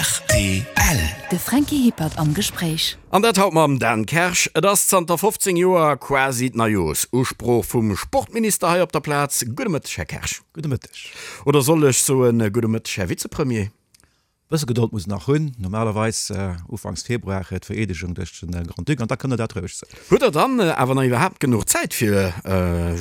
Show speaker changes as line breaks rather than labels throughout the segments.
Rtl.
De Franky Hippert am Gespréich.
An dat haut mam Dan Kersch. Et ass zanter 15 Joer quasi d'Neijoersusprooch vum Sportminister hei op der Plaz. Gudde Mëtteg, Här Kersch.
Gudde Mëtteg.
Oder soll ech soen, gudde Mëtteg, Här Vizepremier?
Bësse Gedold muss en nach hunn. Normalerweis ufanks Februar d'Vereedegung duerch de Grand-Duc an da kënnt der dat roueg soen.
Hutt Der dann awer nach iwwerhaapt genuch Zäit fir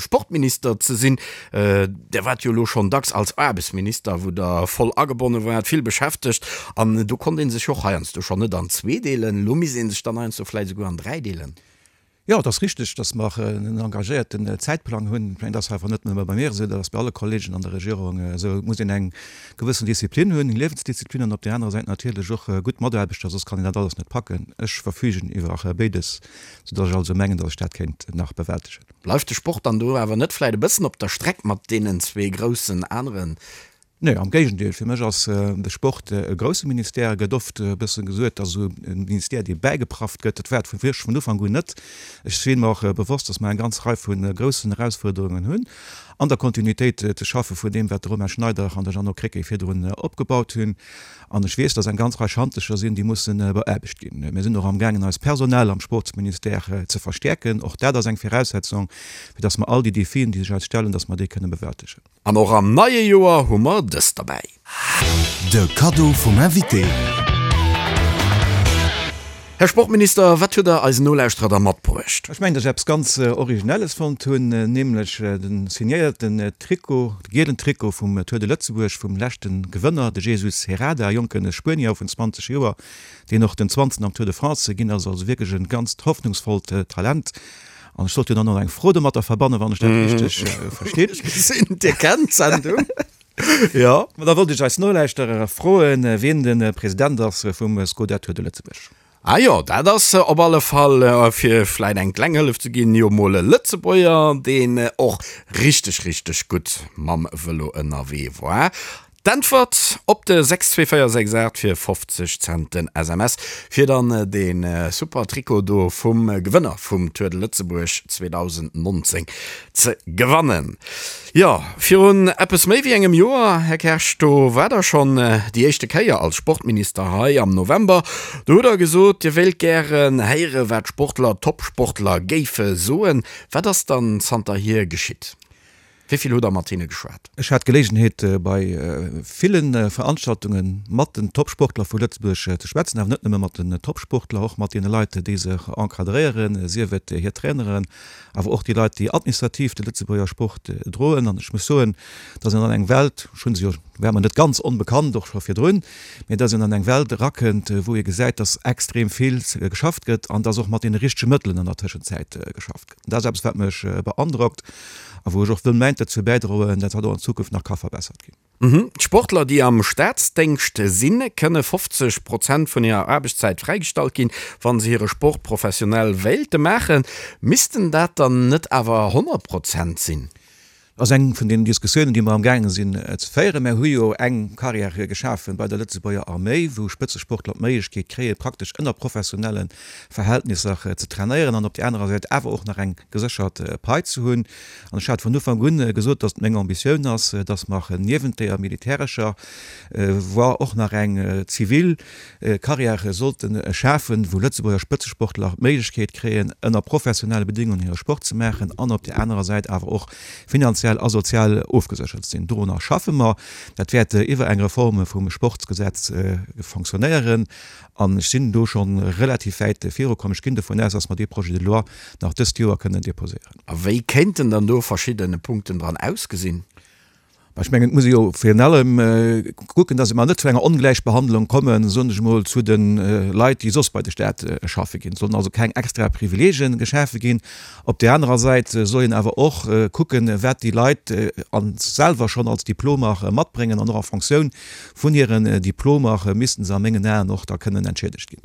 Sportminister ze sinn? Der waart jo elo schonn dacks als Aarbechtsminister, wou Der voll agebonne waart, vill beschäftegt an do konnt ee sech och heiansdo schonn net an zwee deelen. Elo misst ee sech dann heiansdo vläicht esouguer an dräi deelen.
Jo, et ass richteg, datt mer en engagéierten Zäitplang hunn. Ech mengen, dat ass awer net nëmme bei mir esou, dat ass bei alle Kollegen an der Regierung esou. Et muss een eng gewëssen Disziplin hunn, eng Liewensdisziplin an op där anerer Säit natierlech och gutt Mataarbechter, soss kann een dat alles net packen. Ech verfügen iwwer béides, soudatt ech also mengen, datt ech dat kéint nach bewältegen.
Bleift de Sport dann do awer net vläicht e bëssen op der Streck mat deenen zwee groussen aneren?
Nee, am Géigendeel. Fir mech ass de Sport e grousse Ministère. Et gëtt oft e bësse gesuet, dass esou e Ministère, dee bäigeprafft gëtt. Dat war et vu wierklech vun Ufank un net. Ech si mer och bewosst, dass mer eng ganz Rei vu groussen Erausfuerderungen hunn, an der Kontinuitéit ze schaffe vun deem, wat de Romain Schneider an de Jeannot Krecké virdrun opgebaut hunn. An ech weess, dass eng ganz Rei Schantecher sinn, déi musse beaarbecht ginn. Mir sinn och amgaangen, eist Personal am Sportsministère ze verstäerken. Och dat ass eng Viraussetzung, fir dass mer all déi Defien, déi sech eis stellen, dass mer déi kënne bewältegen.
An och am neie Joer hu mer dëst derbäi.
De Kaddo vum Invité.
Här Sportminister, wat hutt Der eisen Nolauschterer da matbruecht?
Ech mengen, dass ech eppes ganz Originelles fonnt hunn, nämlech de signéierten Trikot, de gielen Trikot vum Tour de Lëtzebuerg vum leschte Gewënner, de Jesus Herrada, e jonke Spuenier vun 20 Joer, deen och den 20. am Tour de France ginn ass. Also wierklech e ganzt hoffnungsvollt Talent. An ech sollt jo dann och eng Fro domatter verbannen, wann ech dat richteg verstinn.
Ech gesinn, Dir kennt d'Sendung. Jo.
Ma da wollt ech eis Nolauschterer froen, wien de President ass vum Skoda Tour de Lëtzebuerg.
Ah jo, dat ass op alle Fall, fir vläit eng kleng Hëllef ze ginn, jo mol e Lëtzebuerger, deen och richteg, richteg gutt mam Vëlo ënnerwee war. D'Äntwert op de 62468 fir 50 Cent den SMS, fir dann dee super Trikot do vum Gewënner vum Tour de Lëtzebuerg 2019 ze gewannen. Jo, virun eppes méi wéi engem Joer, Här Kersch, do waart Der schonn déi éischte Kéier als Sportminister hei am November. Do hutt Der gesot, Dir wéilt gären héiere wat d'Sportler, d'Topsportler géife soen. Wat ass dann zanterhier geschitt? Wéi vill hutt Der mat hinne geschwat?
Ech hat d'Geleegenheet bei ville Veranstaltunge mat den Topsportler vu Lëtzebuerg ze schwätzen, awer net nëmme mat den Topsportler, och mat deene Leit, déi se encadréieren, sief et hir Traineren, awer och déi Leit, déi administrativ de Lëtzebuerger Sport droen. An ech muss soen, dass een an eng Welt, ech hu se jo, war mer net ganz onbekannt, och scho virdrun, mee dass een an eng Welt erakënnt, wou ee gesäit, dass extrem vill geschafft gëtt an dass och mat deene richtege Mëttelen an der Tëschenzäit geschafft gëtt. Dat ass eppes, wat mech beandrockt a wou ech och wëll mäint dozou bäidroen, dat dat och an Zukunft nach ka verbessert ginn.
D'Sportler, déi am Staatsdéngscht sinn, kënne 50 Prozent vun hirer Aarbechtszäit fräigestallt ginn, wa se hire Sport professionell wéilte maachen. Missten dat dann net awer 100 Prozent sinn?
Dat ass eng vun deenen Diskussiounen, déi mer amgaange sinn ze féieren. Mer hu jo eng Carrière geschafe bei der Lëtzebuerger Arméi, wou Spëtzesportler d'Méiglechkeet kréien, praktesch ënner professionelle Verhältnisser ze trainéieren an op där anerer Säit awer och nach eng geséchert Pai ze hunn. An ech hat vun Ufank un gesot, datt et meng Ambitioun ass, datt mer niewent deeër militärescher Voie och nach eng zivil Carrièrë sollte schafen, wou Lëtzebuerger Spëtzesportler d'Méiglechkeet kréien, ënner professionelle Bedingungen hire Sport ze maachen an op där anerer Säit awer och finanziell a sozial ofgeséchert ze sinn. Dorunner schaffe mer. Dat wäert iwwer eng Reforme vum Sportsgesetz fonctionnéieren an ech sinn do scho relativ wäit virukomm. Ech ginn dovun aus, dass mer dee Projet de loi nach dëst Joer kënnen déposéieren.
A wéi kéinten dann do verschidde Punkten dran ausgesinn?
Mä ech mengen, et muss ee jo virun allem kucken, dass mer net zu enger Ongläichbehandlung kommen, soen ech emol, zu de Leit, déi soss bei de Staat schaffe ginn. Et sollen also keng extra Privileege geschafe ginn. Op där anerer Säit soll een awer och kucken, wat déi Leit selwer schonn als Diplomer matbréngen an och a Fonctioun vun hiren Diplomer missten se a mengen Aen och da kënnen entschiedegt ginn.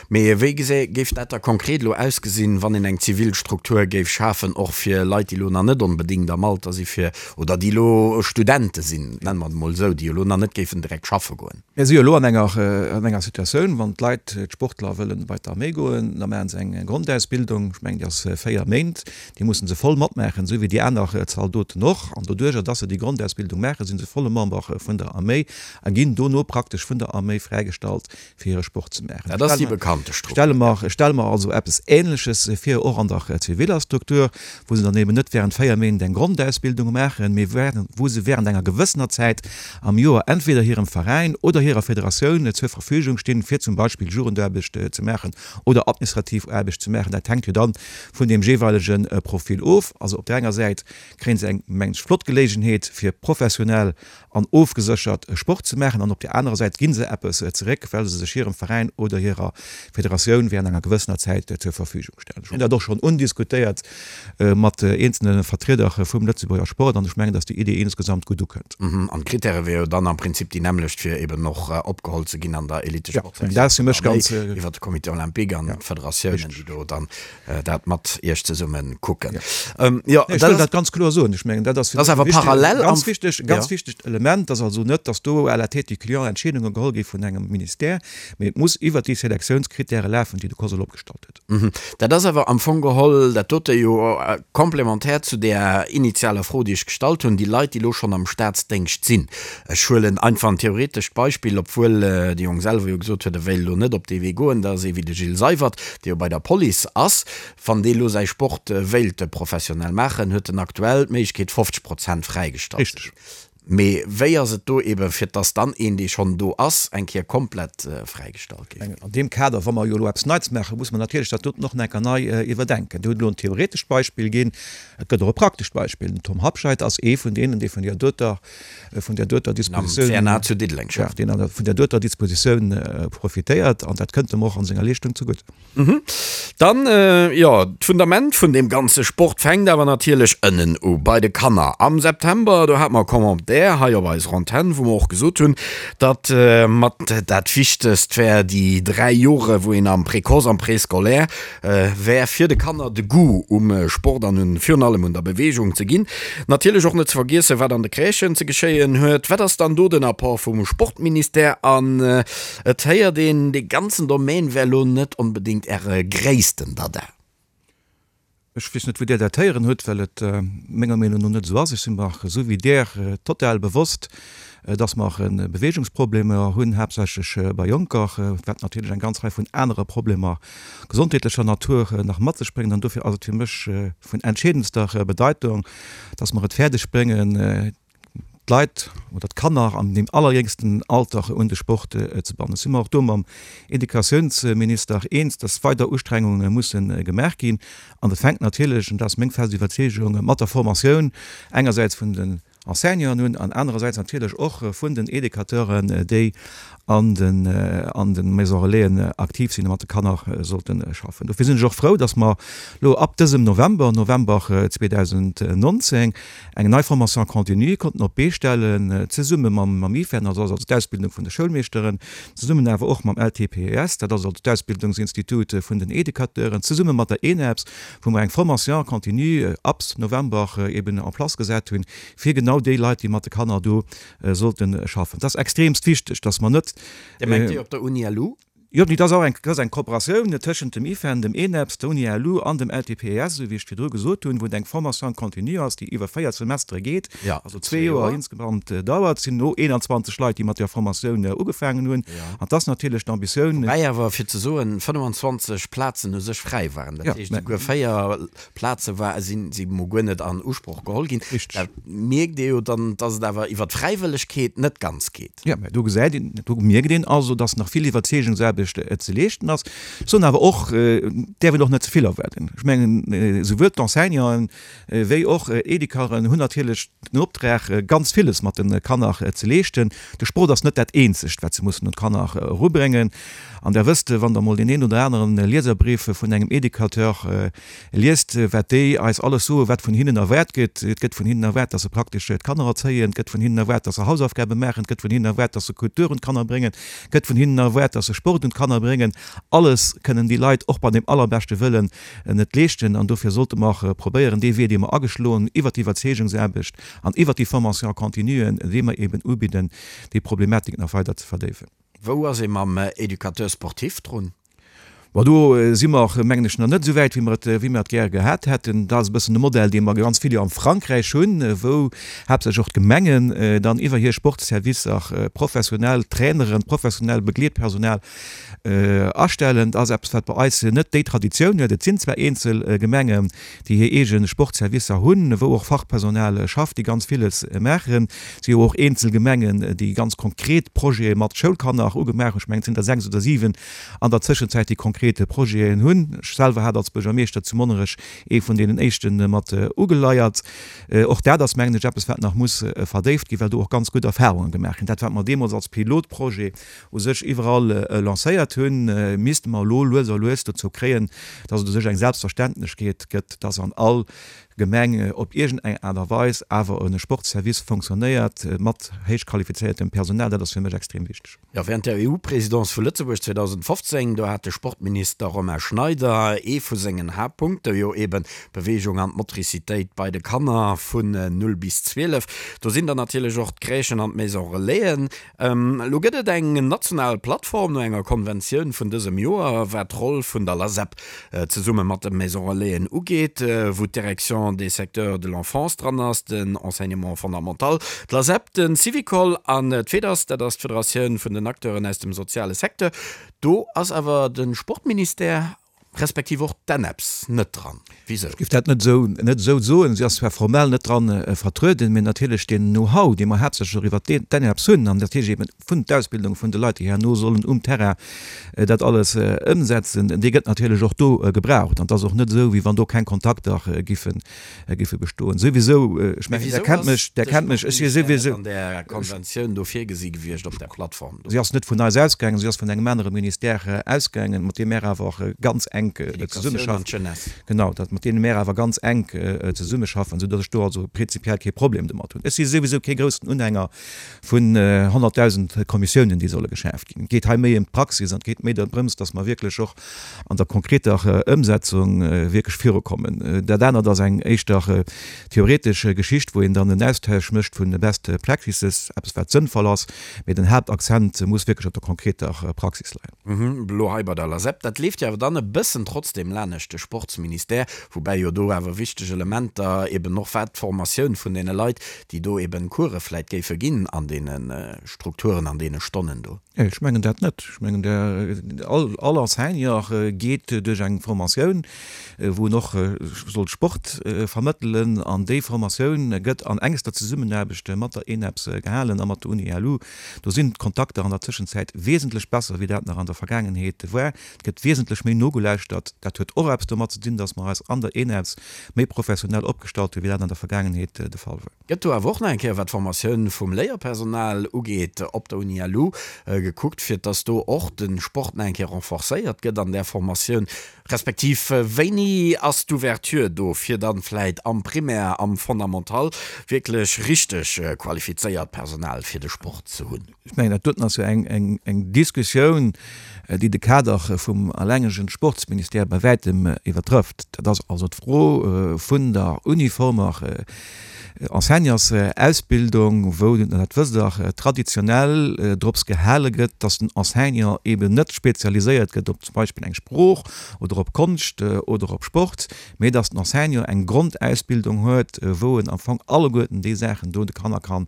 Mee wéi gesä géif dat da konkret elo ausgesinn, wann een eng zivil Struktur géif schafen, och fir Leit, déi elo nach net onbedéngt am Alter si fir, oder déi elo Studente sinn, nenne mer et emol esou, déi elo nach net géifen direkt schaffe goen?
Mir si jo elo an enger, an enger Situatioun, wann d'Leit, d'Sportler wëllen bei d'Arméi goen, da maache se eng Grondausbildung, ech mengen déi ass 4 Méint, déi musse se voll matmaachen, esou wéi déi aner Zaldoten och. An doduerjer, dass se déi Grondausbildung maachen, si se volle Member vun der Arméi a ginn dono praktesch vun der Arméi fräigestallt, fir hire Sport ze maachen.
Dat ass déi bekannte Struktur.
Stelle mer, stelle mer also eppes Ähnleches vir, och an der ziviller Struktur, wou se dann eben net während 4 Méint eng Grondausbildung maachen, mee wou se während enger gewëssener Zäit am Joer entweder hirem Veräin oder hirer Federatioun zur Verfügung stinn, fir zum Beispill Jugendaarbecht ze maachen oder administrativ Aarbecht ze maachen. Dat hänkt jo dann vun deem jeeweilege Profil of. Also op där enger Säit kréie se eng, mengen ech, flott Geleegenheet, fir professionell an ofgeséchert Sport ze maachen an op där anerer Säit gi se eppes zeréck, well se sech hirem Veräin oder hirer Federatioun während enger gewëssener Zäit zur Verfügung stellen. Ech hunn dat och schonn undiskutéiert mat eenzelne Vertrieder vum Lëtzebuerger Sport an ech mengen, datt déi Idee insgesamt gutt ukënnt.
An d'Krittäre wiere jo dann am Prinzip déi nämmlecht, fir eben och opgeholl ze ginn an der Elitesportsektioun vun der Arméi iwwer de Comité olympique an d'Federatiounen, déi do dann dat mat Iech zesumme kucken.
Jo, ech wëll dat ganz kloer soen. Ech mengen, dat ass
fir mech e wichteg,
ganz wichteg, ganz wichtegt Element, dass also net, dass do à la tête du client Entscheedunge geholl gi vun engem Ministère, mee et muss iwwert déi Selektiounskritäre lafen, déi de COSL opgestallt
huet. Dat ass awer am Fong geholl dat dote jo komplementär zu där initialer Fro, déi ech gestallt hunn, déi Leit, déi elo schonn am Staatsdéngscht sinn. Ech huelen einfach en theoretescht Beispill, obwuel de Jong selwer jo gesot huet, e wéilt elo net op dee Wee goen, dat ass ee wéi de Gilles Seywert, dee jo bei der Police ass. Wann dee elo säi Sport wéilt professionell maachen, huet en aktuell d'Méiglechkeet 50 Prozent fräigestallt ze ginn. Mee wéi ass et do eben, fir dass dann een, dee schonn do ass, eng Kéier komplett fräigestallt géif ginn?
An deem Kader, wa mer jo elo eppes Neits maachen, muss mer natierlech dat doten och nach eng Kéier nei iwwerdenken. Dir hutt elo en theoretescht Beispill ginn, et gëtt och e praktescht Beispill. Den Tom Habscheid ass ee vun deenen, dee vun där doter vun där doter
Dispositioun, am CNA zu Diddeleng
schafft, deen vun där doter Dispositioun profitéiert an dat kënnt em och an senger Leeschtung zegutt.
Dann, jo, d'Fundament vun deem ganze Sport fänkt awer natierlech ënnen u, bei de Kanner. Am September, do hate mer e Commentaire hei op eiser Antenn, wou mer och gesot hunn, datt mat dat Wichtegst wär déi 3 Jore wou een am Précoce, am Préscolaire wär fir de Kanner de Goût um Sport an un virun allem un der Beweegung ze ginn. Natierlech och net ze vergiessen, wat an de Crèchen ze geschéien huet. Wat ass dann do den Apport vum Sportministère? An et héiert een, dee ganzen Domaine wär lo net onbedéngt Äre gréissten Dada.
Ech weess net, wou Där dat héieren hutt, well et menger Meenung no net esou ass. Ech si mer, esou wéi Där, total bewosst, dass mer Beweegungsproblemer hunn, haaptsächlech bei Jonker, wat natierlech eng ganz Rei vun anere Problemer gesondheetlecher Natur nach mat sech bréngt. An dofir ass et fir mech vun entscheedendster Bedeitung, dass mer et fäerdeg bréngen, d'Leit oder d'Kanner an deem allerjéngsten Alter un de Sport ze bannen. Ech si mer och do mam Educatiounsminister eens, dass weider Ustrengunge musse gemaach ginn. An dat fänkt natierlech, an dat ass meng fest Iwwerzeegung, mat der Formatioun engersäits vun den Enseignanten un an anerersäits natierlech och vun den Educateuren, déi an den an de Maisons Relaisen aktiv sinn a mat de Kanner sollte schaffen. Dofir sinn ech och frou, dass mer elo ab dësem November, November 2019, eng nei Formation continue konnten op d'Bee stellen, zesumme mam mam IFEN, also also d'Ausbildung vun de Schoulmeeschteren, zesummen awer och mam LTPES, dat ass also d'Ausbildungsinstitut vun den Educateuren, zesumme mat der ENEPS, wou mer eng Formation continue ab November eben en place gesat hunn, fir genau déi Leit, déi mat de Kanner do sollte schaffen. Et ass extremst wichteg, dass mer net.
Dir mengt déi op der Uni LU?
Jo, dat ass och eng, dat ass eng Kooperatioun tëschent dem IFEN, dem ENEPS, der Uni LU an dem LTPES, esou wéi ech virdru gesot hunn, wou et eng Formation continue ass, déi iwwer 4 Semestere geet, also zwee Joer insgesamt dauert. Et sinn elo 21 Leit, déi mat där Formatioun ugefaangen hunn. An et ass natierlech d'Ambitioun.
Woubäi awer, fir ze soen, 25 Plazen u sech fräi waren. Dat heescht, esouguer 4 Plaze war, sinn si mol guer net an Usproch geholl ginn.
Richtig.
Da mierkt ee jo dann, dass et awer iwwer d'Fräiwëllegkeet net ganz geet.
Jo, mä do gesäit een, do mierkt een also, dass nach vill Iwwerzeegungsaarbecht ze leeschten ass. Ech soen awer och, et däerf een och net ze vill erwaarden. Ech mengen, esouwuel d'Enseignanten wéi och d'Educateuren hunn natierlech den Optrag, ganz villes mat de Kanner ze leeschten. De Sport ass net dat eenzegt, wat se mussen un d'Kanner erubréngen. An Der wësst, wann Der emol deen een oder aneren Lieserbrief vun engem Educateur liest, wat déi eis alles soen, wat vun hinnen erwaart gëtt. Et gëtt vun hinnen erwaart, dass se praktesch d'Kanner erzéien, et gëtt vun hinnen erwaart, dass se Hausaufgabe maachen, et gëtt vun hinnen erwaart, dass se Kultur un d'Kanner bréngen, et gëtt vun hinnen erwaart, dass se Sport un. un d'Kanner bréngen. Alles kënnen déi Leit och bei dem allerbeschte Wëllen net leeschten. An dofir sollte mer probéieren, dee Wee, dee mer ageschloen hunn, iwwert d'Iwwerzeegungsaarbecht an iwwert déi Formation continue, déi mer eben ubidden, déi Problematik nach weider ze verdéiwen.
Wou ass ee mam Éducateur sportif drun?
Bon, do si mer, mengen ech, nach net esou wäit, wéi mer et, wéi mer et gär gehat hätten. Dat ass e bëssen de Modell, dee mer ganz vill jo am Frankräich hunn, wou haaptsächlech och d'Gemengen dann iwwer hir Sportservicer professionell Traineren, professionell Begleetpersonal astellen. Dat ass eppes, wat bei eis net déi Traditioun huet. Et sinn zwar eenzel Gemengen, déi hir eege Sportservicer hunn, wou och Fachpersonal schafft, déi ganz villes maachen. Et si jo och eenzel Gemengen, déi ganz konkret Projete mat Schoulkanner ugemaach hunn. Ech mengen, et sinn der 6 oder 7 an der Tëschenzäit, déi konkret Projeten hunn. Ech selwer hat als Buergermeeschter zu Monnerech ee vun deenen éischte mat ugeleiert. Och dat ass, mengen ech, eppes, wat nach muss verdéift ginn, well do och ganz gutt Erfahrunge gemaach ginn. Dat, wat mer deemools als Pilotprojet u sech iwwerall lancéiert hunn, misste mer elo lues a lues dozou kréien, dass et u sech eng Selbstverständlechkeet gëtt, dass an all Gemeng op iergend eng Aart a Weis awer e Sportsservice fonctionnéiert mat héich qualifizéiertem Personal. Dat ass fir mech extrem wichteg.
Jo, während der EU-Présidence vu Lëtzebuerg 2015, do hat de Sportminister Romain Schneider ee vu sengen Haaptpunkte jo eben d'Beweegung an d'Motricitéit bei de Kanner vun 0 bis 12. Do sinn dann natierlech och d'Crèchen an d'Maison Relaisen. Elo gëtt et eng national Plattform no enger Konventioun vun dësem Joer, wat d'Roll vun der LASEP zesumme mat de Maison Relaisen ugeet, wou d'Direction des secteurs de l'enfance dran ass, den Enseignement fondamental, d'LASEP, de Syvicol an d'FEDAS, dat ass d'Federatioun vun den Acteuren aus dem soziale Secteur. Do ass awer de Sportministère respektiv och d'ENEPS net dran. Wisou?
Ech géif dat net esou net esou soen. Si ass zwar formell net dran vertrueden, mee natierlech deen Know-how, dee mer haaptsächlech och iwwert d'ENEPS hunn an natierlech eben vun d'Ausbildung vun de Leit, déi herno sollen um Terrain dat alles ëmsetzen, dee gëtt natierlech och do gebraucht. An et ass och net esou, wéi wann do keng Kontakter géifen géife bestoen. Souwisou, ech mengen, Der kennt mech, Der kennt mech, ech si souwisou.
An där Konventioun do virgesi gewiescht op där Plattform
do? Si ass net vun eis ausgaangen, si ass vun engem anere Ministère ausgaangen, mat deem mär awer och ganz enk zesummeschaffen. Genau, dat, mat deene mär awer ganz enk zesummeschaffen, soudatt ech do also prinzipiell kee Problem domat hunn. Ech si souwisou kee groussen Unhänger vun 100.000 Kommissiounen, déi solle geschaaft ginn. Et geet hei méi ëm d'Praxis an et geet méi drëms, datt mer wierklech och an der konkreter Ëmsetzung wierklech virukommen. Dat anert ass eng éischter theoretesch Geschicht, wou een dann en Austausch mécht vun de best practices, eppes wat sënnvoll ass, mee den Haaptakzent muss wierklech op der konkreter Praxis leien.
Elo hei bei der LASEP, dat leeft jo awer dann e bëssen trotzdem lanescht de Sportsministère, woubäi jo do awer wichteg Elementer eben och wat d'Formatioun vun deene Leit, déi do eben Course vläit géife ginn an deene Strukturen, an deene Stonnen do.
Ech mengen dat net. Ech mengen, all Enseignant geet duerch eng Formatioun, wou en och soll Sport vermëttelen. An déi Formatioun gëtt an engster Zesummenaarbecht mat der ENEPS gehalen a mat der Uni-LU. Do sinn d'Kontakter an der Tëschenzäit wesentlech besser, wéi dat nach an der Vergaangenheet war. Et gëtt wesentlech méi nogelauschtert. Dat huet och eppes domat ze dinn, datt mer eis an der ENEPS méi professionell opgestallt hunn, wéi dat an der Vergaangenheet de Fall war.
Gëtt do awer och nach eng Kéier, wat d'Formatioun vum Léierpersonal ugeet, op der Uni LU gekuckt, fir dass do och de Sport nach eng Kéier renforcéiert gëtt an där Formatioun? Respektiv wéini ass d'Ouverture do, fir dann vläit am Primaire, am Fondamental wierklech richteg qualifizéiert Personal fir de Sport ze hunn?
Ech mengen, dat doten ass jo eng Diskussioun, déi de Kader vum allengegen Sportsministère bei wäitem iwwertrëfft. Dat ass also d'Fro vun der uniformer Enseignantsausbildung, wou, dat wësst Der, traditionell drops gehale gëtt, dass den Enseignant eben net spezialiséiert gëtt op zum Beispill eng Sprooch oder op Konscht oder op Sport, mee dass den Enseignant eng Grondausbildung huet, wou en am Fong alleguerten déi Saachen do de Kanner ka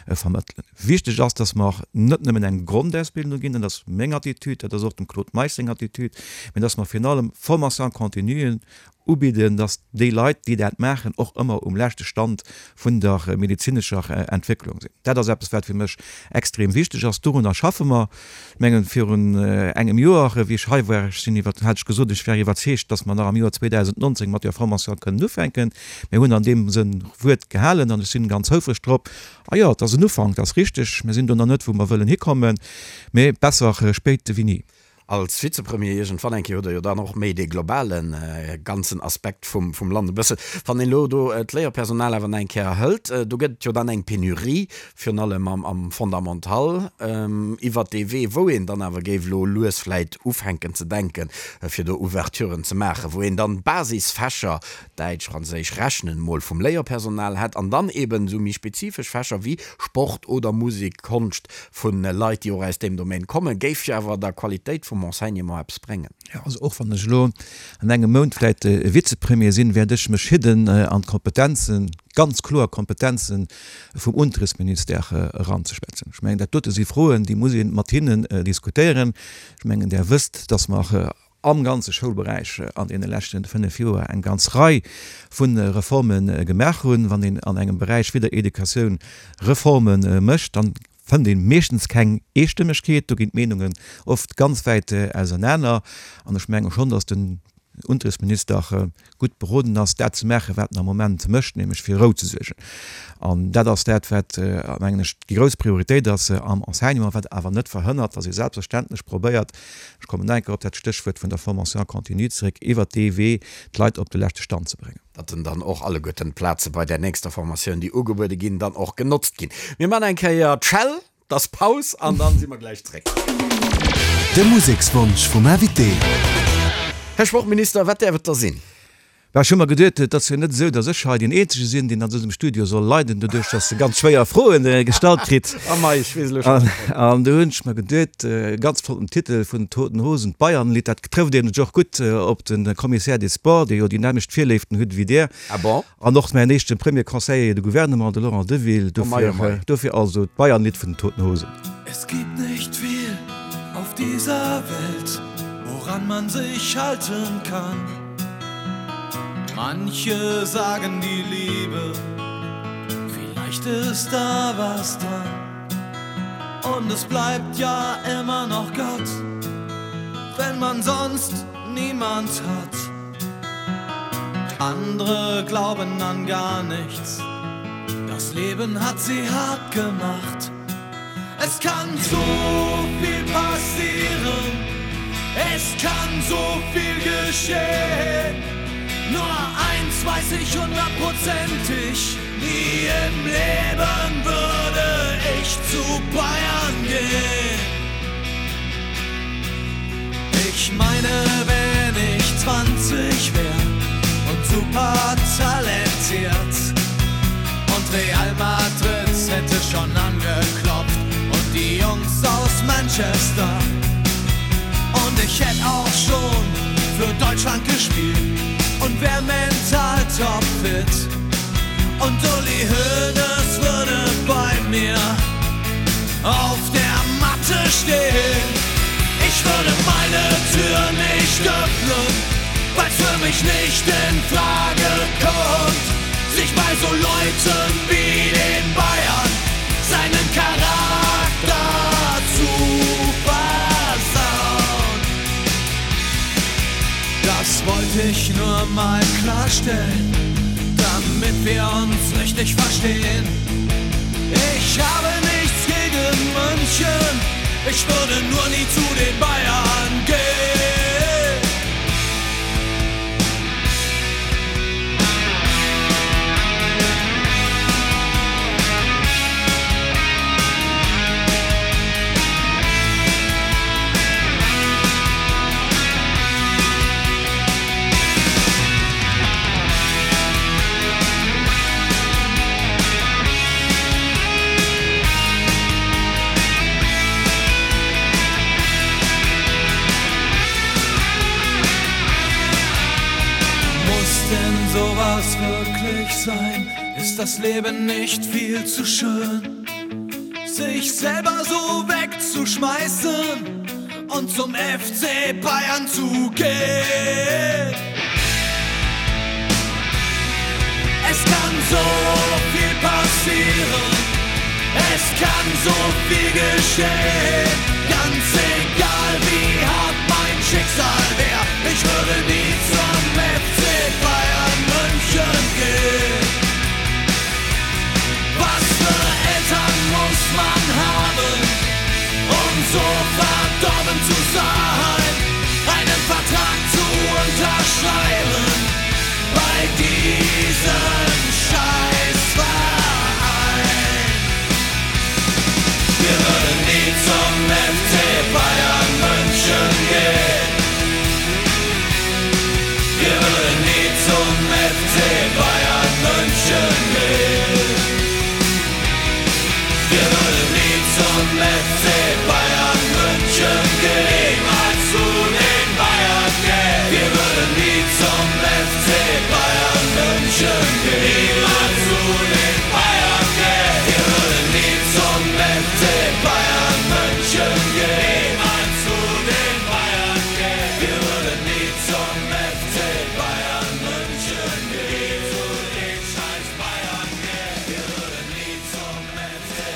vermëttelen. Wichteg ass, dass mer net nëmmen eng Grondausbildung ginn, dat ass meng Attitude, dat ass och dem Claude Meisch seng Attitude, mä dass mer virun allem Formation-continuen ubidden, dass déi Leit, déi dat maachen, och ëmmer um leschte Stand vun der medezinescher Entwécklung sinn. Dat ass eppes, wat fir mech extrem wichteg ass. Dorunner schaffe mer. Ech mengen, virun engem Joer, wéi ech hei war, ech sinn iwwer, hat ech gesot, ech wär iwwerzeegt, dass mer nach am Joer 2019 mat där Formation kënnen ufänken. Mir hunn an deem Sënn Wuert gehalen an ech sinn ganz houfreg drop. A jo, et ass en Ufank, dat ass richteg. Mir sinn do nach net, wou mer wëllen hikommen, mee besser spéit wéi ni.
Als Vizepremier iergendwann eng Kéier hutt Der jo dann och méi dee globale ganzen Aspekt vum Land e bëssen. Wann een elo do d'Léierpersonal awer nach eng Kéier hëlt, do gëtt et jo dann eng Penurie, virun allem am Fondamental, iwwert dee Wee, wou een dann awer géif elo lues vläit ufänken ze denken, fir do Ouverturen ze maachen, wou een dann d'Basisfächer, Däitsch, Franséisch, Rechnen, mol vum Léierpersonal hätt an dann eeben esou méi spezifesch Fächer wéi Sport oder Musek, Konscht, Vu Leit, déi och aus deem Domaine kommen, géif jo awer der Qualitéit vum Enseignement eppes bréngen.
Jo, also och wann ech elo an engem Mount vläicht Vizepremier sinn, wäert ech mech hidden an d'Kompetenzen, ganz kloer Kompetenzen vum Unterrichtsministère eranzeschwätzen. Ech mengen, dat dote si Froen, déi muss ee mat hinnen diskutéieren. Ech mengen, Der wësst, dass mer am ganze Schoulberäich an deene leschte 5 Joer eng ganz Rei vu Reforme gemaach hunn. Wann een an engem Beräich wéi der Educatioun Reforme mécht, dann fënnt ee meeschtens keng Eestëmmegkeet. Do ginn d'Meenungen oft ganz wäit ausernaner. An ech menge schonn, datt den Unterrichtsminister gutt beroden ass, dat ze maachen, wat en am Moment mécht, nämlech fir Rou ze suergen. An dat ass dat, wat, mengen ech, déi grouss Prioritéit ass am Enseignement, wat awer net verhënnert, datt ee selbstverständlech probéiert, ech kommen nach eng Kéier op dat Stéchwuert vun der Formation continue zeréck, iwwert dee Wee d'Leit op de leschte Stand ze bréngen.
Datt en dann och alleguerten d'Plaze bei där nächster Formatioun, déi ugebuede ginn, dann och genotzt ginn. Mir man eng Kéier d'Schell, 't ass Paus an dann si mer gläich zréck.
De Musekswonsch vum Invité.
Här Sportminister, wat däerf et da sinn?
Bah, ech hu mer geduet, et ass jo net esou, datt ech hei deen Eenzege sinn, deen an dësem Studio soll leiden, doduerch datt e ganz schwéier Froen gestallt kritt.
Oh mei, ech weess elo schonn.
An du hunn ech mer geduet, e ganz flotten Titel vun den Toten Hosen, d'Bayernlidd, dat trëfft nämlech och gutt op de Commissaire des Sports, dee jo déi nämmlecht Virléiften huet ewéi Dir.
Ah bon?
An och mäin éischte Premier Conseiller de Gouvernement, de Laurent Deville.
Oh mei, oh mei.
Dofir also d'Bayernlidd vun den Toten Hosen.
Es gibt nicht viel auf dieser Welt, woran man sich halten kann. Manche sagen die Liebe, vielleicht ist da was dran. Und es bleibt ja immer noch Gott, wenn man sonst niemand hat. Andere glauben an gar nichts. Das Leben hat sie hart gemacht. Es kann so viel passieren. Es kann so viel geschehen. Nur eins weiß ich hundertprozentig, nie im Leben würde ich zu Bayern gehen. Ich meine, wenn ich 20 wär und super talentiert und Real Madrid hätte schon angeklopft und die Jungs aus Manchester und ich hätte auch schon für Deutschland gespielt und wär mental topfit und Uli Hoeneß würde bei mir auf der Matte stehen. Ich würde meine Tür nicht öffnen, weil's für mich nicht in Frage kommt, sich bei so Leuten wie den Bayern seinen Charakter zu versauen. Das wollte ich nur mal klarstellen, damit wir uns richtig verstehen. Ich habe nichts gegen München, ich würde nur nie zu den Bayern gehen. Muss denn sowas wirklich sein? Ist das Leben nicht viel zu schön? Sich selber so wegzuschmeißen und zum FC Bayern zu gehen. Es kann so viel passieren, es kann so viel geschehen. Ganz egal wie hart mein Schicksal wär, ich würde nie zum FC Bayern München gehen. Was für Eltern muss man haben, um so verdorben zu sein? gehen. Niemals zu den Bayern gehen. Wir würden nie zum FC Bayern München gehen. Niemals zu den Bayern gehen. Wir würden nie zum FC Bayern München gehen. Niemals zu den Bayern gehen. Wir würden nie zum FC Bayern München gehen. Zu den scheiß Bayern gehen. Wir würden nie zum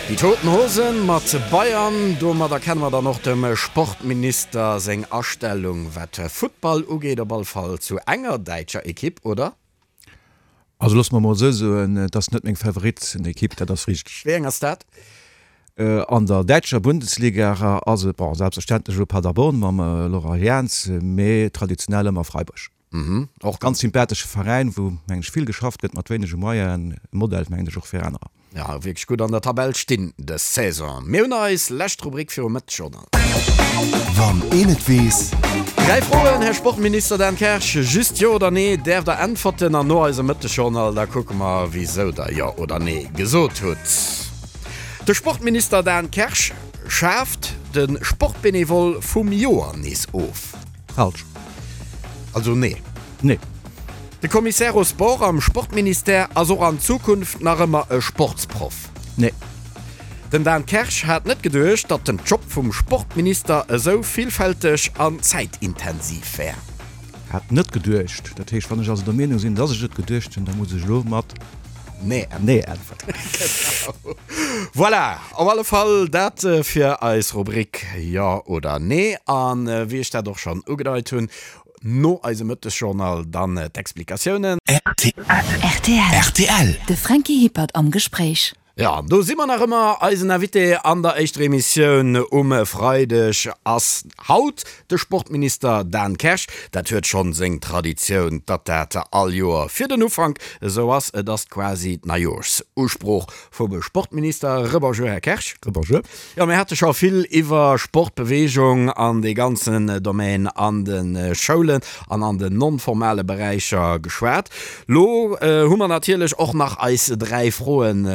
Die Toten Hosen mat Bayern. Domadder kenne mer dann och dem Sportminister seng Astellung wat Futtball ugeet, op all Fall zu enger däitscher Ekipp, oder?
Also loosse mer mol esou soen, et ass net meng Favoritenekipp, dat ass richteg.
Wéi eng ass dat?
An der däitscher Bundesliga ass et, bon, selbstverständlech elo Paderborn mam Laurent Jans, mee traditionell ëmmer Freiburg.
Och
ganz sympathesche Veräin, wou, mengen ech, vill geschafft gëtt mat wéinege Moyenen. E Modell, mengen ech, och fir anerer.
Ja, wierklech gutt an der Tabell stinn dës Saison. Mir hunn eis lescht Rubrik virum Mëttesjournal.
Wann een et weess.
Dräi Froen, Här Sportminister Dan Kersch, just Jo oder Nee däerft der äntwerten an no eisem Mëttesjournal da kucke mer, wisou der Jo oder Nee gesot hutt. De Sportminister Dan Kersch schaaft de Sportbenevol vum Joer nees of.
Falsch.
Also nee.
Nee.
De Commissaire aux Sports am Sportministère ass och an Zukunft nach ëmmer e Sportsproff.
Nee.
Den Dan Kersch hat net geduecht, datt den Job vum Sportminister esou villfälteg an zäitintensiv wär.
Hat net geduecht. Dat heescht, wann ech also der Meenung sinn, datt ech et geduecht hunn, da muss ech elo mat
Nee
Nee äntwerten.
Genau. Voilà, op alle Fall dat fir eis Rubrik Jo oder Nee. A wéi ech dat och schonn ugedeit hunn, no eisem Mëttesjournal dann d'Explikatiounen.
Rtl.
Rtl.
De Franky Hippert am Gespréich.
Jo, an do si mer nach ëmmer. Eisen Invité an der éischter Emissioun um Freideg ass haut de Sportminister Dan Kersch. Dat huet schonn seng Traditioun, datt dat all Joer fir den Ufank esou ass. Et ass quasi d'Neijoerschusprooch vum Sportminister. Rebonjour, Här Kersch.
Rebonjour.
Jo, mir hate scho vill iwwer Sport, Beweegung an dee ganzen Domaine an de Schoulen an an den non-formale Beräicher geschwat. Lo hu mer natierlech och nach eis 3 Froen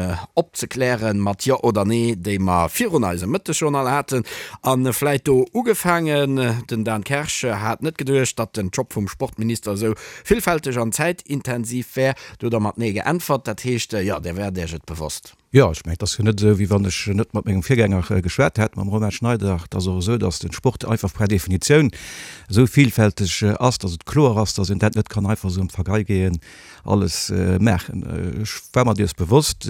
opzeklären, mat Jo oder Nee, déi mer virun eisem Mëttesjournal haten. A vläit do ugefaangen, den Dan Kersch hat net geduecht, datt den Job vum Sportminister esou villfälteg an zäitintensiv wär. Do hutt Der mat Nee geäntwert. Dat heescht, jo, Dir waart Iech et bewosst.
Jo, ech mengen, et ass jo net esou, wéi wann ech net mat mengem Virgänger geschwat hätt, mam Romain Schneider. Et ass och esou, datt de Sport einfach per Definitioun esou vielfälteg ass, datt et kloer ass, datt een dat net kann einfach esou am Vergeigehen alles maachen. Ech war mer dees bewosst.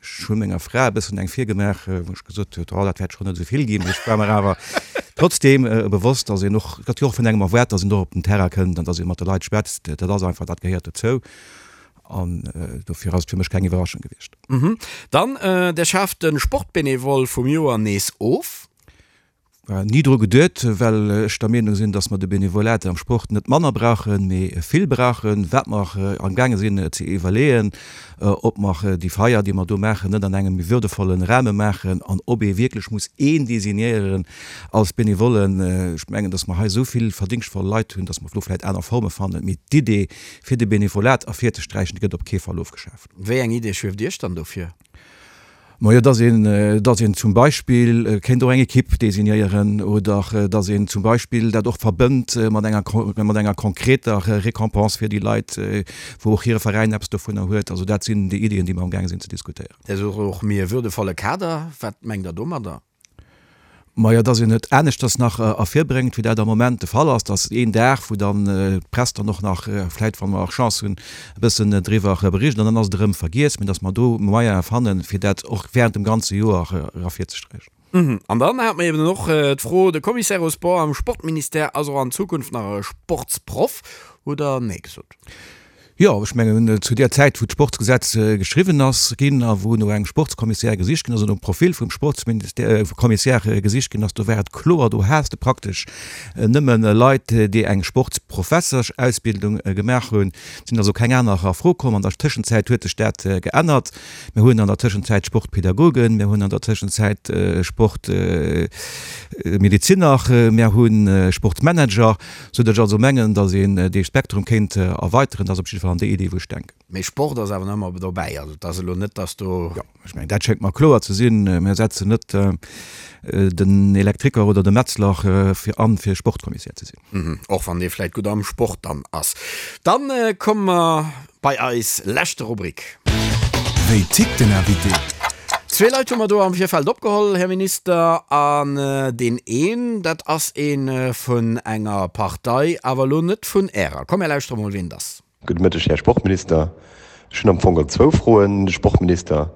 Ech hu menger Fra e bëssen eng virgemaach, wou ech gesot huet, oh, dat wäert schonn net esou vill ginn. Mee ech war mer awer trotzdeem bewosst, datt een och, et gëtt jo och vun engem erwaart, datt een och op den Terrain kënnt an datt ee mat de Leit schwätzt. Dat ass einfach, dat gehéiert dozou. An dofir ass et fir mech keng Iwwerraschung gewiescht.
Dann, Der schaaft de Sportbénévol vum Joer nees of.
Ni dru geduet, well ech der Meenung sinn, dass mer de Benevolat am Sport net manner brauchen, mee vill brauchen. Wat mer amgaange sinn ze iwwerleeën, ob mer déi Feier, déi mer do maachen, net an engem méi würdevollen Rahme maachen an ob ee wierklech muss een designéieren als Benevollen. Ech mengen, dass mer hei esou vill verdéngschtvoll Leit hunn, dass mer do vläicht aner Forme fannen. Mee d'Idee, Fir de Benevolat ervirzesträichen, gëtt op kee Fall ofgeschaaft.
Wéi eng Idee schwieft Iech dann do vir?
Majo, dass een, dass een zum Beispill kéint och eng Ekipp designéieren oder dass een zum Beispill dat och verbënnt mat enger, mat enger konkreter Récompense fir déi Leit, wou och hire Veräin eppes dovunner huet. Also dat sinn déi Iddien, déi mer amgaange sinn ze diskutéieren.
Dir sot och méi e würdevolle Kader. Wat mengt Der domadder?
Majo, dass een et aneschters nach ervirbréngt, wéi dat am Moment de Fall ass, dass een Dag, wou dann d'Press dann och nach vläicht, wa mer och Chance hunn, e bëssen driwwer bericht an dann ass et erëm vergiess, mä dass mer do Moyene fannen, fir dat och während dem ganze Joer ervirzesträichen.
An dann hate mer eben och d'Fro, de Commissaire aux Sports am Sportministère ass och an Zukunft nach e Sportsproff, hutt Der Nee gesot?
Jo, ech mengen, zu där Zäit, wou d'Sportsgesetz geschriwwen ass ginn a wou no engem Sportskommissär gesicht ginn ass, oder nom Profil vum Sportskommissär gesicht ginn ass, do war et kloer, do has de praktesch nëmme Leit, déi eng Sportsprofessorsausbildung gemaach hunn. Et sinn also keng aner a Fro komm. An der Tëschenzäit huet sech dat geännert. Mir hunn an der Tëschenzäit Sportpädagogen, mir hunn an der Tëschenzäit Sportmediziner, mir hu Sportmanager. Sou datt ech also mengen, datt een dee Spektrum kéint erweiteren. Dat ass op jidde Fall. jidde Fall an déi Idee, wou ech denken.
Mee Sport ass awer nach ëmmer dobäi. Also et ass elo net, datt do.
Jo, ech mengen, dat schéngt mer kloer ze sinn. Mir setzen net den Elektriker oder de Metzler fir an, fir Sportkommissär ze
sinn. Och wann dee vläicht gutt am Sport dann ass. Dann komme mer bei eis leschte Rubrik.
Wéi tickt den Invité?
Zwee Leit hu mer do am Virfeld opgeholl, Här Minister, an deen een, dat ass ee vun enger Partei, awer elo net vun Ärer. Komm, mir lauschtere mol, wien et ass.
Gudde Mëtteg, Här Sportminister. Ech hunn am Fong geholl zwou Froen un de Sportminister.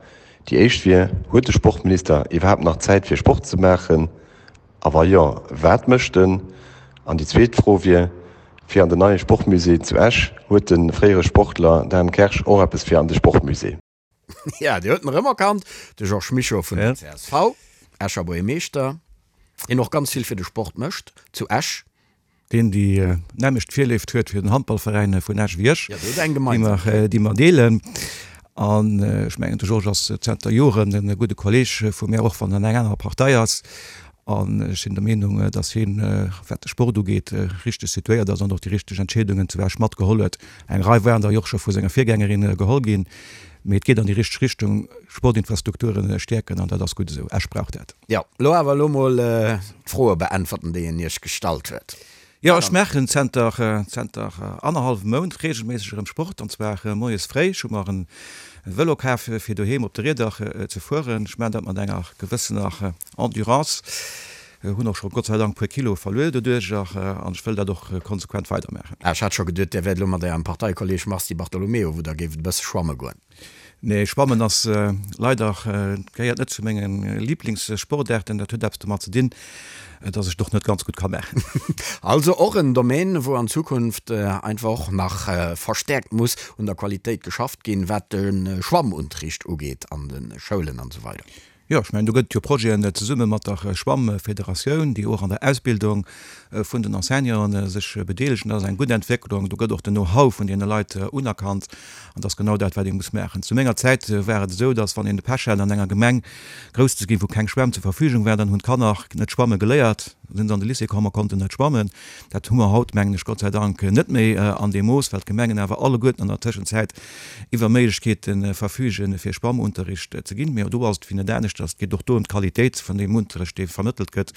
Déi éischt wier, Huet de Sportminister iwwerhaapt nach Zäit fir Sport ze maachen? A wa jo, wat mécht en? An déi zweet Fro wier, Fir an den neie Sportmusée zu Esch, huet de fréiere Sportler Dan Kersch och eppes fir an de Sportmusée?
Ja, Dir hutt en erëm erkannt, de Georges Mischo vun der csv, Escher Buergermeeschter, deen och ganz vill fir de Sport mécht zu Esch.
Deen déi nämmlecht Virléift huet fir den Handballveräin vun Esch wéi ech, déi mer deelen. An ech mengen, de Georges ass zenter Joren e gudde Kolleeg vu mär, och wann en eng aner Partei ass. An ech sinn der Meenung, datt hien, wat de Sport ugeet, richteg situéiert ass an och déi richteg Entscheedungen zu Esch matgeholl huet. Eng Rei waren der jo och scho vu senger Virgängerin geholl ginn. Mee et geet an déi richteg Richtung, Sportinfrastrukture stäerken, an dat ass gutt esou. Esch brauch dat.
Jo, lo awer elo mol d'Froe beäntwerten, déi en Iech gestallt huet.
Jo, ech maachen zenter zenter annerhallwem Mount reegelméisseg erëm Sport, an zwar moies fréi. Ech hu mer en Vëlo kaf fir doheem op de Rieder ze fueren. Ech maachen dat mat enger gewëssener Endurance. Hunn och scho Gott sei Dank e puer Kilo verluer doduercher an ech wëll dat och konsequent weidermaachen.
Ah, ech hat scho geduet, Dir wäert elo mat Ärem Parteikolleeg Mars Di Bartolomeo, wou Der géift e bësse schwamme goen.
Nee, Schwammen ass leider, gehéiert net zu menge Liblingssportaarten. Dat huet eppes domat ze dinn, dass ech et och net ganz gutt ka maachen.
Also och en Domaine, wou an Zukunft einfach och nach verstäerkt muss un der Qualitéit geschafft ginn, wat de Schwammunterricht ugeet an de Schoulen an esou weider.
Jo, ech mengen, do gëtt et jo Projeten zesumme mat der Schwammfederatioun, déi och an der Ausbildung vun den Enseignanten sech bedeelegen. Dat ass eng gutt Entwécklung. Do gëtt och den Know-how vun deene Leit unerkannt. An dat ass genau dat, wat ee muss maachen. Zu menger Zäit war et esou, datt, wann een de Pech hat, an enger Gemeng grouss ze ginn, wou keng Schwämm zur Verfügung war, dann hunn d'Kanner net schwamme geléiert, da sinn se an de Lycée komm a konnten net schwammen. Dat hu mer haut, mengen ech, Gott sei Dank net méi an deem Mooss, well d'Gemengen awer alleguerten an der Tëschenzäit iwwer Méiglechkeete verfügen, fir Schwammunterricht ze ginn. Mee do ass et wéi net aneschters, et geet och do ëm d'Qualitéit vun deem Unterrecht, dee vermëttelt gëtt.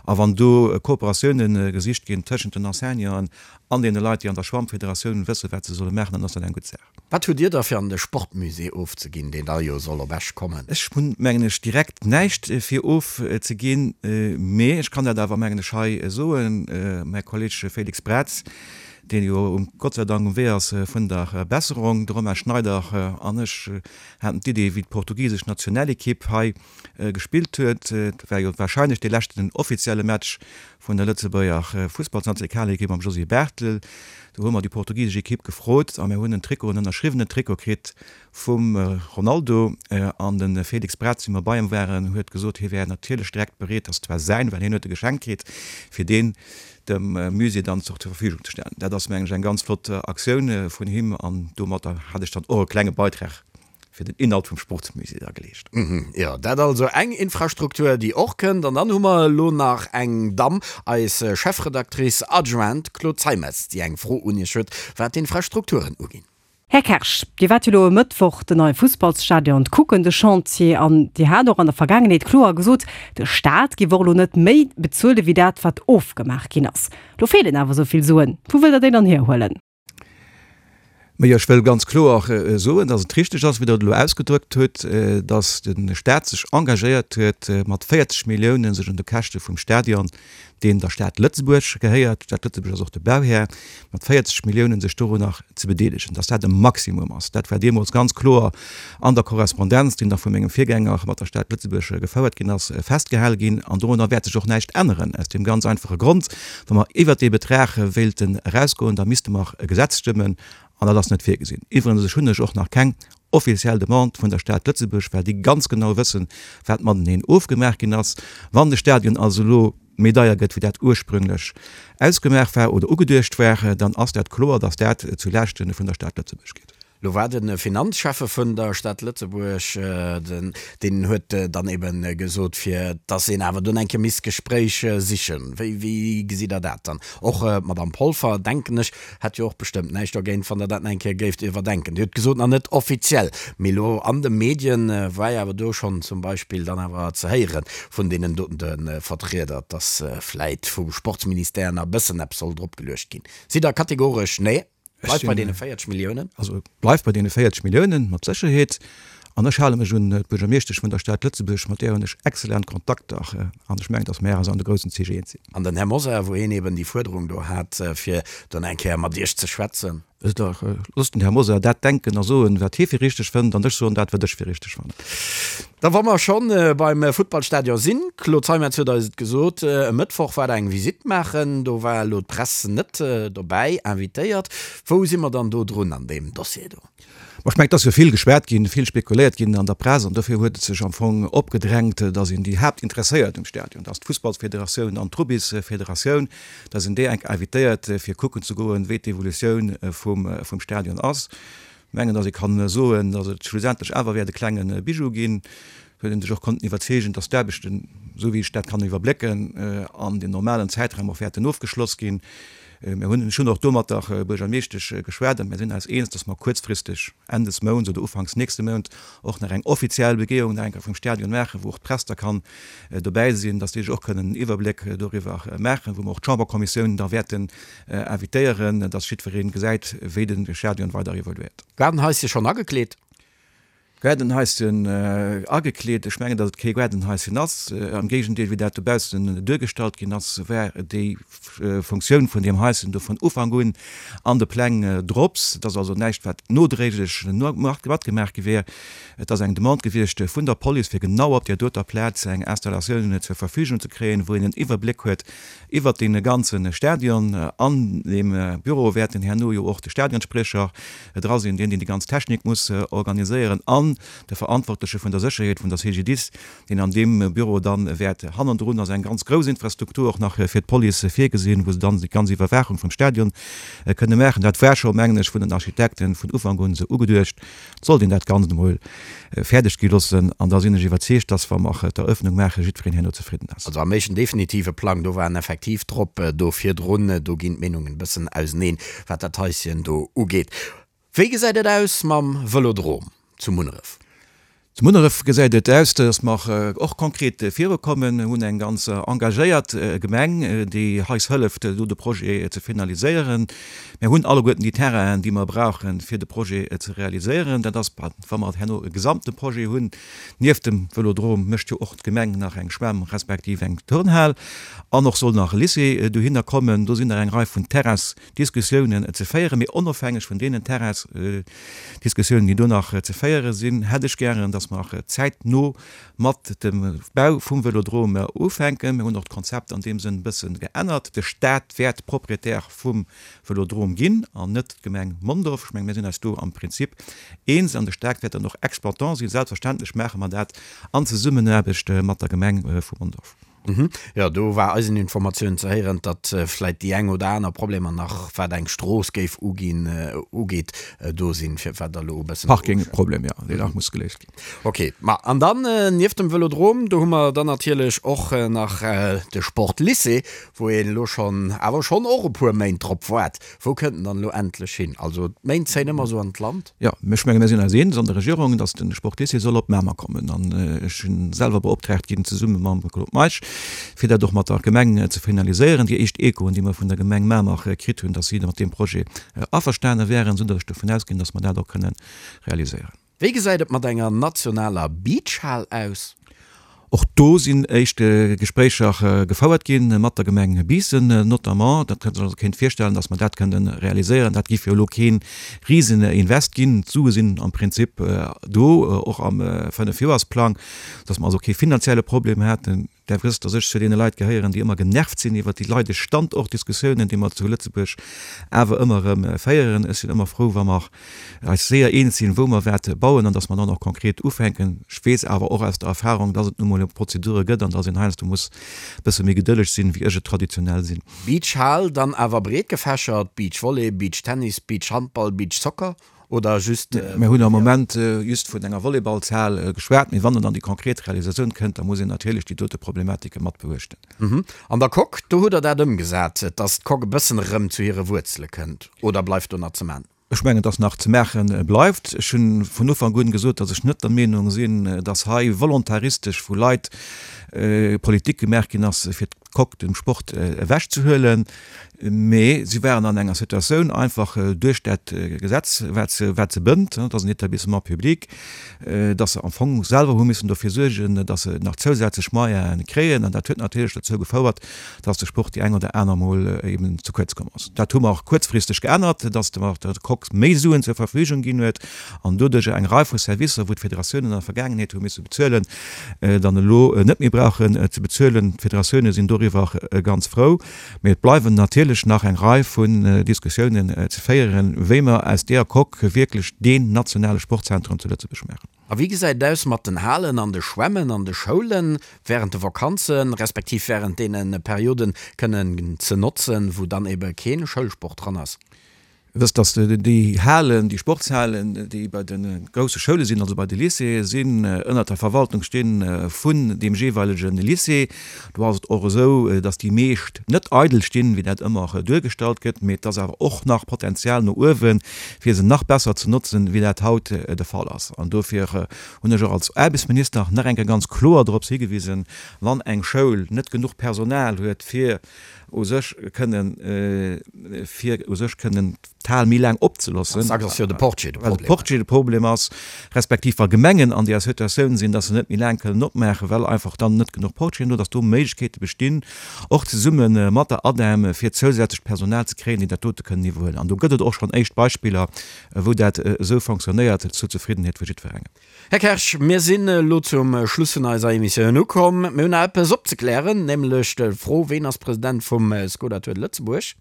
A wann do Kooperatioune gesicht ginn tëschent den Enseignanten an deene Leit, déi an der Schwammfederatioun wëssen, wat se solle maachen, dann ass dat eng gutt Saach.
Wat hutt Dir da fir an de Sportmusée ofzeginn, deen da jo soll op Esch kommen?
Ech hunn, mengen ech, direkt näischt fir ofzeginn, mee ech kann dat awer, mengen ech, hei soen, Mäi Kolleg Félix Braz, deen jo um, Gott sei Dank um Wee ass vun der Besserung, de Romain Schneider an ech haten d'Idee, wéi d'portugisesch Nationalekipp hei gespillt huet, dat war jo wahrscheinlech dee leschten offizielle Match vun der Lëtzebuerger Fussballsnationalekipp mam Josy Barthel, do hu mer déi portugisesch Ekipp gefrot a mir hunn en Trikot, en ënnerschriwwenen Trikot kritt vum Ronaldo. An de Félix Braz, wéi mer bei em waren, huet gesot, hie wär natierlech direkt bereet, dass zwar säin, well hien huet e geschenkt kritt, fir deen dem Musée dann zur Verfügung ze stellen. Dat ass, mengen ech, eng ganz flott Aktioun vun him an domatter hat ech dann och e klenge Beitrag fir den Inhalt vum Sportsmusée da geleescht.
Jo, dat also eng Infrastruktur, déi och kënnt. An dann hu mer elo nach eng Damm, eis Chefredactrice adjointe Claude Zeimetz, déi eng Fro un Iech huet, wat d'Infrastrukturen uginn.
Här Kersch, Dir waart jo elo e Mëttwoch den neie Fussballsstadion kucken, de Chantier, an Dir hat och an der Vergaangenheet kloer gesot, de Staat géif och elo net méi bezuele wéi dat, wat ofgemaach ginn ass. Lo feelen awer esou vill Suen. Wou wëllt Der déi dann hierhuelen?
Majo, ech wëll ganz kloer soen, dass et richteg ass, wéi Der et elo ausgedrückt hutt, dass de Staat sech engagéiert huet, mat 40 Milliounen sech un de Käschte vum Stadion deen der Stad Lëtzebuerg gehéiert, d'Stad Lëtzebuerg ass och de Bauhär, mat 40 Milliounen sech dorunner ze bedeelegen, dass dat e Maximum ass. Dat war deemools ganz kloer an der Korrespondenz, déi nach vu mengem Virgänger mat der Stad Lëtzebuerg gefouert ginn ass, festgehale ginn. An dorunner wäert sech och näischt änneren, aus deem ganz einfache Grond, Wa mer iwwert dee Betrag wéilten erausgoen, da misste mer e Gesetz stëmmen, an dat ass net virgesinn. Iwwregens, ech hunn ech och nach keng offiziell Demande vun der Stad Lëtzebuerg, well déi ganz genau wëssen, wat mateneen ofgemaach ginn ass. Wann de Stadion also elo méi deier gëtt, wéi dat ursprünglech ausgemaach war oder ugeduecht war, dann ass dat kloer, datt dat zu Laaschte vun der Stad Lëtzebuerg geet.
Lo war de Finanzschäffe vun der Stad Lëtzebuerg, den, deen huet dann eben gesot, fir dass een awer dunn eng Kéier misst d'Gespréich sichen. Wéi, wéi gesitt Der dat dann? Och d'Madame Polfer, denken ech, hätt jo och bestëmmt näischt dogéint, wann Der dat nach eng Kéier géift iwwerdenken. Dir hutt gesot, nach net offiziell, mee elo an de Medien war jo awer do schonn zum Beispill dann awer ze héiere vun deenen doten Vertrieder, dass vläit vum Sportsministère nach e bëssen eppes soll dropgeluecht ginn. Sidd Der kategoresch, nee? Bleift bei deene 40 Milliounen?
Also et bleift bei deene 40 Milliounen, mat Sécherheet. An ech hale mech un d'Buergermeeschtesch vun der Stad Lëtzebuerg, mat där hunn ech exzellent Kontakter. An ech mengen, datt mär eis an de groussen Zich eens sinn.
An den Här Mosar, wou hien eben déi Fuerderung do hat, fir dann eng Kéier mat Iech ze schwätzen.
Loosst den Här Mosar dat denken a soen, wat hie fir richteg fënnt, an ech soen dat, wat ech fir richteg fannen.
Da wa mer schonn beim Futtballstadion sinn, Claude Zeimetz huet eis et gesot, e Mëttwoch war der eng Visitt maachen, do war elo d'Press net dobäi invitéiert. Wou si mer dann do drun an deem Dossier do?
Ma ech mengen, et ass jo vill geschwat ginn, vill spekuléiert ginn an der Press an dofir huet et sech am Fong opgedrängt, datt een déi Haaptinteresséiert um Stadion, dat ass d'Fussballsfederatioun an d'Rubbysfederatioun, datt een déi enk invitéiert fir kucken ze goen, wéi d'Evolutioun vum Stadion ass. Mengen, datt ee kann soen, datt et schlussendlech awer wäert e klenge Bijou ginn, huet een sech och konnten iwwerzeegen, datt d'Aarbechten, esou wéi ech dat kann iwwerblécken, an dem normalen Zäitraum och wäerten ofgeschloss ginn. Mir hunn, ech hunn och do mat der Buergermeeschtesch geschwat an mir sinn eis eens, datt mer kuerzfristeg, Enn des Mounts oder ufanks nächste Mount, och nach eng offiziell Begehung nach eng Kéier vum Stadion maachen, wou och d'Press da kann dobäi sinn, datt déi sech och kënnen en Iwwerbléck doriwwer maachen, wou mer och d'Chamberkommissioun da wäerten Invitéieren, dass jiddwereen gesäit, wéi de Stadion weider evoluéiert.
Gaardenhaisschen schonn agekleet?
Gaardenhaisschen agekleet? Ech mengen, dass et kee Gaardenhaisschen ass. Am Géigendeel, wéi dat dobaussen duergestallt ginn ass, war déi Funktioun vun deem Haisschen do vun Ufank un an de Pläng drops. Et ass also näischt, wat nodréiglech matgemaach gi wär. Et ass eng Demande gewiescht vun der Police, fir genau op där doter Plaz eng Installatioun zur Verfügung ze kréien, wou een en Iwwerbléck huet Iwwert dee ganze Stadion. An deem Büro wäerten herno jo och de Stadionspriecher dra sinn, deen, deen déi ganz Technik muss organiséieren, an de Verantwortleche vun der Sécherheet vun der CGDIS, deen an deem Büro dann wäert. Hannendrun ass eng ganz grouss Infrastruktur och nach fir d'Police virgesinn, wou se dann déi ganz Iwwerwaachung vum Stadion kënne maachen. Dat war scho, mengen ech, vun den Architekten vun Ufank un esou ugeduecht. Et sollt een dat Ganzt emol fäerdeg gi loossen an da sinn ech iwwerzeegt, dass, wa mer d'Eröffnung maachen, jiddwereen herno zefridden ass.
Also am éischten definitive Plang, do waren effektiv drop do virdrun, do ginn d'Meenungen e bëssen auseneen, wat dat Haischen do ugeet. Wéi gesäit et aus mam Vëlodrom zu Munneref?
Zu Munneref gesäit et aus, dass mer och konkret virukommen. Mir hunn eng ganz engagéiert Gemeng, déi eis hëlleft, do de Projet ze finaliséieren. Mir hunn alleguerten déi Terrainen, déi mer brauchen, fir de Projet ze realiséieren. Dat ass, wa mer herno e gesamte Projet hunn. Nieft dem Vëlodrom mécht jo och d'Gemeng nach eng Schwämm respektiv eng Turnhal an och soll nach e Lycée dohinner kommen. Do sinn nach eng Rei vun Terrains Diskussiounen ze féieren. Mee onofhängeg vun deenen Terrainsdiskussiounen, déi do nach ze féiere sinn, hätt ech gären, dass mer zäitno mat dem Bau vum Vëlodrom ufänken. Mir hunn och d'Konzept an deem Sënn e bësse geännert. De Stat wäert Proprietär vum Vëlodrom ginn an net d'Gemeng Mondorf. Ech mengen, mir sinn eis do am Prinzip eens an de Stat wäert dann och Exploitant sinn. Selbstverständlech maache mer dat an Zesummenaarbecht mat der Gemeng vu Mondorf.
Jo, do war eisen Informatiounen ze héieren, datt vläit déi eng oder aner Problemer nach, wat eng Strooss géif uginn, ugeet, do sinn, fir wat Der elo e bëssen.
Parking-Problem, jo, deen nach muss geléist ginn.
Ok, ma an dann, nieft dem Vëlodrom, do hu mer dann natierlech och nach de Sportlycée, wou een elo schonn, awer schonn och e puer Méint drop waart. Wou kënnt en dann elo endlech hin? Also d'Méint zéien ëmmer esou an d'Land.
Jo, ech menge mir sinn eis eens an der Regierung, datt de Sportlycée soll op Mamer kommen. An ech sinn selwer beoptraagt ginn, zesumme mam Claude Meisch, fir dat och mat der Gemeng ze finaliséieren. Déi éischt Echoen, déi mer vun der Gemeng Mamer kritt hunn, datt si mat deem Projet averstane wären, esou datt ech dovun ausginn, datt mer dat och kënne realiséieren.
Wéi gesäit et mat enger nationaler Beachhal aus?
Och do sinn éischt Gespréicher gefouert gi mat der Gemeng Biissen notamment. Dat kënnt sech also kéint virstellen, datt mer dat kënnen realiséieren. Dat géif jo elo kee Riseninvest ginn. D'Sue sinn am Prinzip do, och am Fënnefjoersplang, datt mer also kee finanzielle Problem hätten. Der wësst, dass ech zu deene Leit gehéieren, déi ëmmer genervt sinn iwwert déi leidesch Standortdiskussiounen, déi mer zu Lëtzebuerg awer ëmmer erëm féieren. Ech sinn ëmmer frou, wa mer eis séier eens sinn, wou mer wat bauen an dass mer dann och konkret ufänken. Ech weess awer och aus der Erfahrung, dass et nu mol Prozedure gëtt an dass een heiansdo muss e bësse méi gedëlleg sinn, wéi ech et traditionell sinn.
Beachhal dann awer breet gefächert, Beachvolley, Beachtennis, Beachhandball, Beachsoccer? Oder just.
Mir hunn am Moment just vun enger Volleyballshal geschwat, mee wann et an déi konkret Realisatioun kënnt, da muss een natierlech déi dote Problematike mat beuechten.
An der Coque, do hutt Der dat ëmgesat, dass d'Coque e bëssen erëm zu hire Wuerzele kënnt, oder bleift do nach ze man?
Ech mengen, dass nach ze maache bleift. Ech hu vun Ufank un gesot, dass ech net der Meenung sinn, dass hei volontaristesch vu Leit Politik gemaach ginn ass, fir d'Coque dem Sport ewechzehuelen. Mee si waren an enger Situatioun, einfach duerch dat Gesetz, wat se, wat se bënnt, et ass en Établissement public, dass se am Fong selwer hu missen dofir suergen, dass se nach zousätzlech Moyene kréien. An dat huet natierlech dozou gefouert, dass de Sport déi eng oder aner Mol eben ze kuerz komm ass. Dat hu mer och kuerzfristeg geännert, dass mer der Coque méi Suen zur Verfügung ginn huet an doduercher eng Rei vu Servicer, wou d'Federatiounen an der Vergaangenheet hu misse bezuelen, dann elo net méi brauchen ze bezuelen. D'Federatioune sinn doriwwer ganz frou. Mee et bleiwen natierlech nach eng Rei vun Diskussiounen ze féieren, wéi mer aus deeër Coque wierklech deen nationale Sportzentrum zu Lëtzebuerg maachen.
A wéi gesäit et aus mat den Halen an de Schwämmen an de Schoulen während de Vakanzen, respektiv während deene Perioden kënnen ze notzen, wou dann ebe kee Schoulsport dran ass?
Wësst, dass déi Halen, déi Sportshalen, déi bei de grousse Schoule sinn, also bei de Lycéeë sinn, ënnert der Verwaltung sti vun deem jeeweilege Lycée. Do ass et och esou, dass déi meescht net eidel stinn, wéi dat ëmmer duergestallt gëtt, mee et ass awer och nach Potenzial no uewen, fir se nach besser ze notzen, wéi dat haut de Fall ass. An dofir hunn ech och als Aarbechtsminister nach eng Kéier ganz kloer dorops higewisen, Wann eng Schoul net genuch Personal huet, fir u sech kënnen, fir u sech kënnen d'Hal méi laang opzeloossen.
Dacks ass jo de Portier de
Problem. Well de Portier de Problem ass, respektiv wa Gemengen an deeër Situatioun sinn, dass se net méi laang kënnen opmaachen, well einfach dann net genuch Portieren do, dass do Méiglechkeete bestinn, och zesumme mat der ADEM, fir zousätzlecht Personal ze kréien, déi dat dote kënnen iwwerhuelen. An do gëtt et och schonn éischt Beispiller, wou dat esou fonctionnéiert, zur Zefriddenheet vu jiddwerengem.
Här Kersch, mir sinn elo zum Schluss vun eiser Emissioun ukomm. Mir hunn nach eppes opzeklären, nämlech d'Fro, Ween ass President vum Skoda Tour de Lëtzebuerg?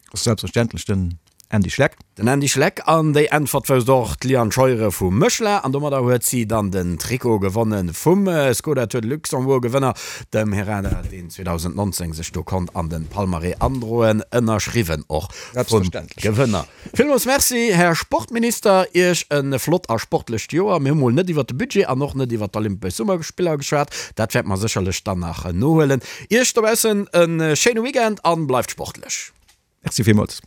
Dat ass selbstverständlech den Andy Schleck.
Den Andy Schleck. An déi Äntwert wousst och d'Liane Scheuere vu Méchela. An domadder huet si dann den Trikot gewonne vum Skoda Tour de Luxembourg Gewënner, dem Herrada, deen 2019 sech do konnt an de Palmarès androen, ënnerschriwwen och vum Gewënner. Villmools Merci, Här Sportminister. Iech e flott a sportlecht Joer. Mir hu mol net iwwert de Budget an och net iwwert d'Olympesch Summerspiller geschwat. Dat wäerte mer sécherlech dann nach nohuelen. Iech dobaussen e schéine Weekend an bleift sportlech.
Merci villmools.